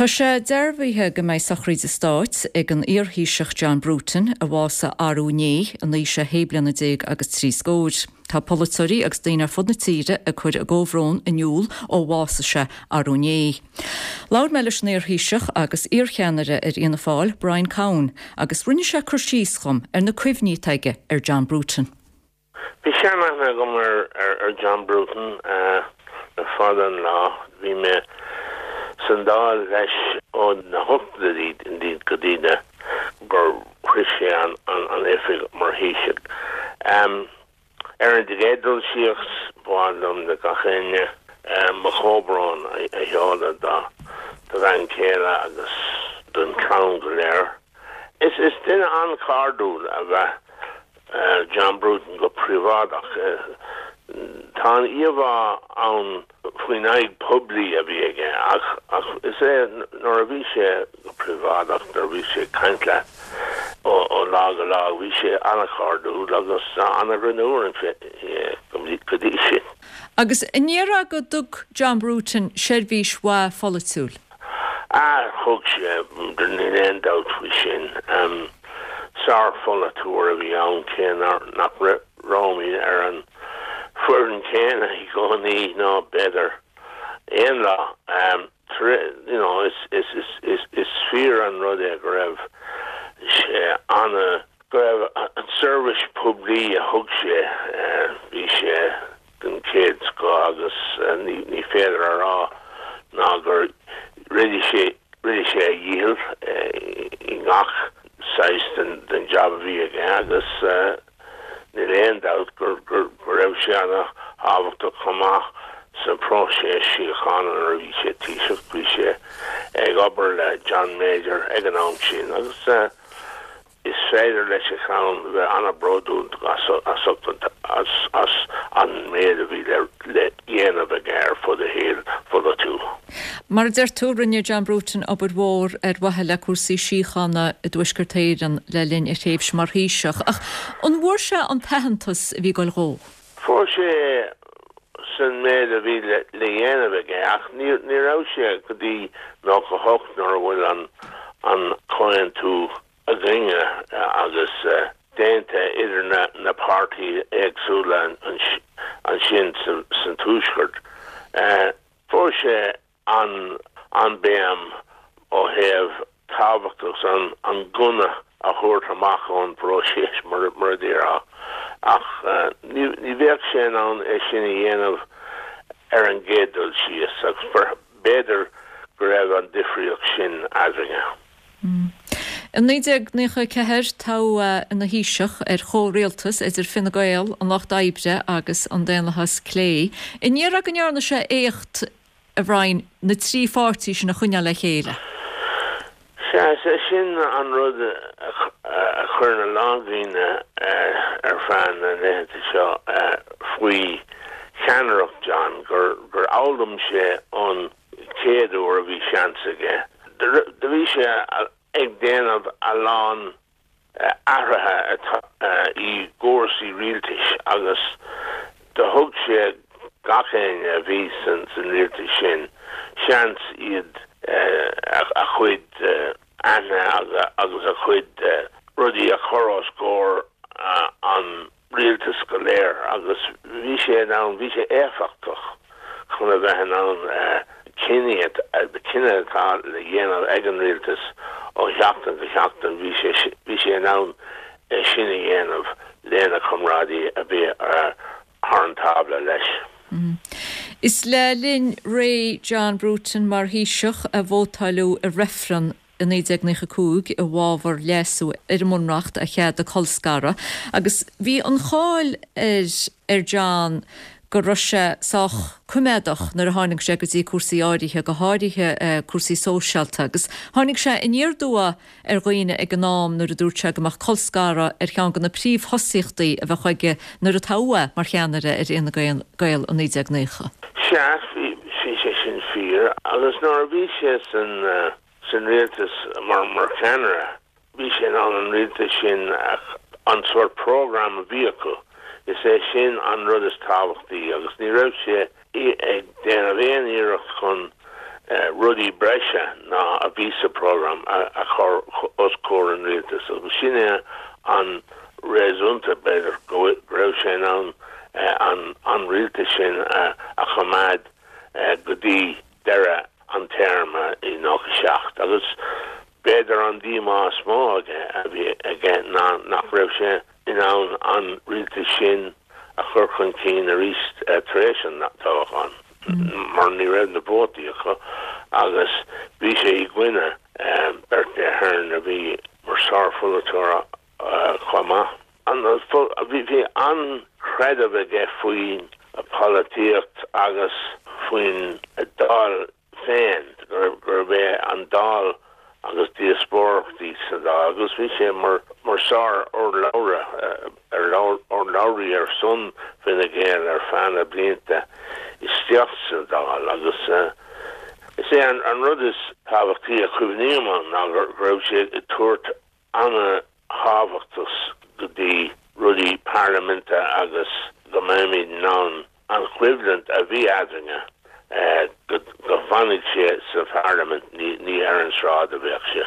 Tá sé dearbhaithe go mbeidh sochraíd stáit ag an iar-Thaoiseach John Bruton, a bhásaigh arú inné in aois a shé bliana déag agus trí scóir. Tá polaiteoirí agus daoine ar fud na tíre ag cur a gcomhbhrón in iúl ó bhásaigh sé arú inné. Labhair mé leis an iar-Thaoiseach agus iar-cheannaire ar Fhianna Fáil, Brian Cowen, agus rinne sé cur síos dhom ar na cuimhní atá aige ar John Bruton. Bhí seanaithne agam ar John Bruton le fada an lá. Bhí mé san Dáil leis ó na hochtóidí go dtí na gur shroich sé an oifig mar Thaoiseach. Ar an gcéad dul síos, ba mhaith liom le gach éinne mo chomhbhrón a sheoladh dá bhean chéile agus don chlann go léir. Is duine an-chairdiúil ab ea John Bruton go príobháideach. Tá an íomhá ann faoin aghaidh poiblí a bhí aige ach ach is é nuair a bhí sé go príobháideach, nuair a bhí sé ag caint leat ó lá go lá, bhí sé an-chairdiúil agus an-ghreannmhar go dtí sin. Agus an ndéarfá go dtug John Bruton seirbhís mhaith pholaitiúil? Ah, thug sé, níl aon dabht faoi sin. Sár-pholaiteoir a bhí ann cé nach rabhamar ar an foireann chéanna i gcónaí ná b'fhéidir aon lá. You know, is, is, is, is fíor an rud é go raibh sé ana, go raibh an seirbhís poiblí a thug sé, bhí sé den chéad scoth agus ní féidir a rá ná gur rinne sé rinne sé a dhícheall i ngach saghas den jab a bhí aige agus níl aon dabht go raibh sé ana thábhachtach chomh maith sa phróiseas síochána nuair a bhí sé Taoiseach. Bhí sé ag obair le John Major ag an am sin agus Is féidir leis a chlann bheith an-bhródúil as an méid a bhí le dhéanamh aige ar fud a shaoil pholaitiúil. Mar a deir tú, rinne John Bruton obair mhór ar mhaithe le cúrsaí síochána i dTuaisceart Éireann le linn a thréimhse mar Thaoiseach. Ach an bhfuair sé an t-aitheantas a bhí ag goil dhó? Fuair sé san méid a bhí le dhéanamh aige ach ní raibh sé go dtí 98 nuair a bhfuil an comhaontú againne agus déanta idir na páirtithe éagsúla ansin san Tuaisceart. Fuair sé an béim ó thaobh tábhachtach an gunna a thabhairt amach ón bpróiseas, mar a déarfá, ach ní bheadh sé in ann é sin a dhéanamh ar an gcéad dul síos, agus b'fhéidir go raibh an difríocht sin eadrainne. I 1994, toghadh é ina Thaoiseach ar chomhrialtas idir Fine Gael, an Lucht Oibre agus an Daonlathas Clé. An ndéarfá go ndearna sé éacht, a Bhrian, na trí pháirtí sin a choinneáil le chéile? Sea, is é sin an rud a chuireann a lán daoine ar feadh na laethanta seo faoi cheannaireacht John, gur fhoghlaim sé ón chéad uair a bhí seans aige. Do bhí sé ag déanamh a lán athruithe i gcúrsaí rialtais agus do thug sé gach éinne a bhí san rialtas sin seans iad a chuid aithne agus a chuid rudaí a chur os comhair an rialtas go léir agus bhí sé in ann, bhí sé éifeachtach chun a bheith in ann cinní, cinneadh atá le dhéanamh ag an rialtas ó sheachtain go seachtain, bhí sé, bhí sé in ann é sin a dhéanamh lena chomrádaí a bhí thar an tábla leis. Is le linn ré John Bruton mar Thaoiseach a vótáileadh i reifreann i 1995 i bhfabhar leasú ar an mBunreacht a cheadaigh colscaradh agus bhí an cháil ar ar John go raibh sé sách coimeádach nuair a tháinig sé go dtí cúrsaí áirithe, go háirithe cúrsaí sóisialta agus tháinig sé aniar aduaidh ar dhaoine ag an am nuair a dúirt sé go mbeadh colscaradh ar cheann de na príomhthosaíochtaí a bheadh aige nuair a toghadh é mar cheannaire ar Fhine Gael i 1990. Sea, bhí sé sin fíor agus nuair a bhí sé san san rialtas mar mar cheannaire, bhí sé in ann an rialtas sin an sórt program a bhí acu, is é sin an rud is tábhachtaí agus ní raibh sé ag déanamh aon iarracht chun. rudaí breise ná a bhí sa program a chur os comhair an rialtais agus sin é an réasúnta, b'fhéidir, go raibh sé in ann an rialtas sin a choimeád go dtí deireadh an téarma i 97 agus b'fhéidir an díomá is mó aige a bhí aige ná nach raibh sé in ann an rialtas sin a chur chun cinn arís tar éis an toghcháin mar ní raibh na vótaí acu agus bhí sé i gcoinne Bertie Ahern a bhí mar sárpholaiteoir chomh maith. Bhí an-chreideamh aige faoin pholaitíocht agus faoin Dáil féin, gurb é an Dáil agus díospóireachtaí sa Dáil agus bhí sé mar sár-urlabhra, urlabhraí ar son Fine Gael ar feadh na blianta isteach sa Dáil agus is é an rud is tábhachtaí a chuimhním ann ná go raibh sé ag tabhairt an-thábhachtas go dtí rudaí parlaiminte agus go mbeimid in ann an choimhlint a bhí eadrainne, go bhfanfaidh sé sa pharlaimint, ní ar an sráid a bheadh sé.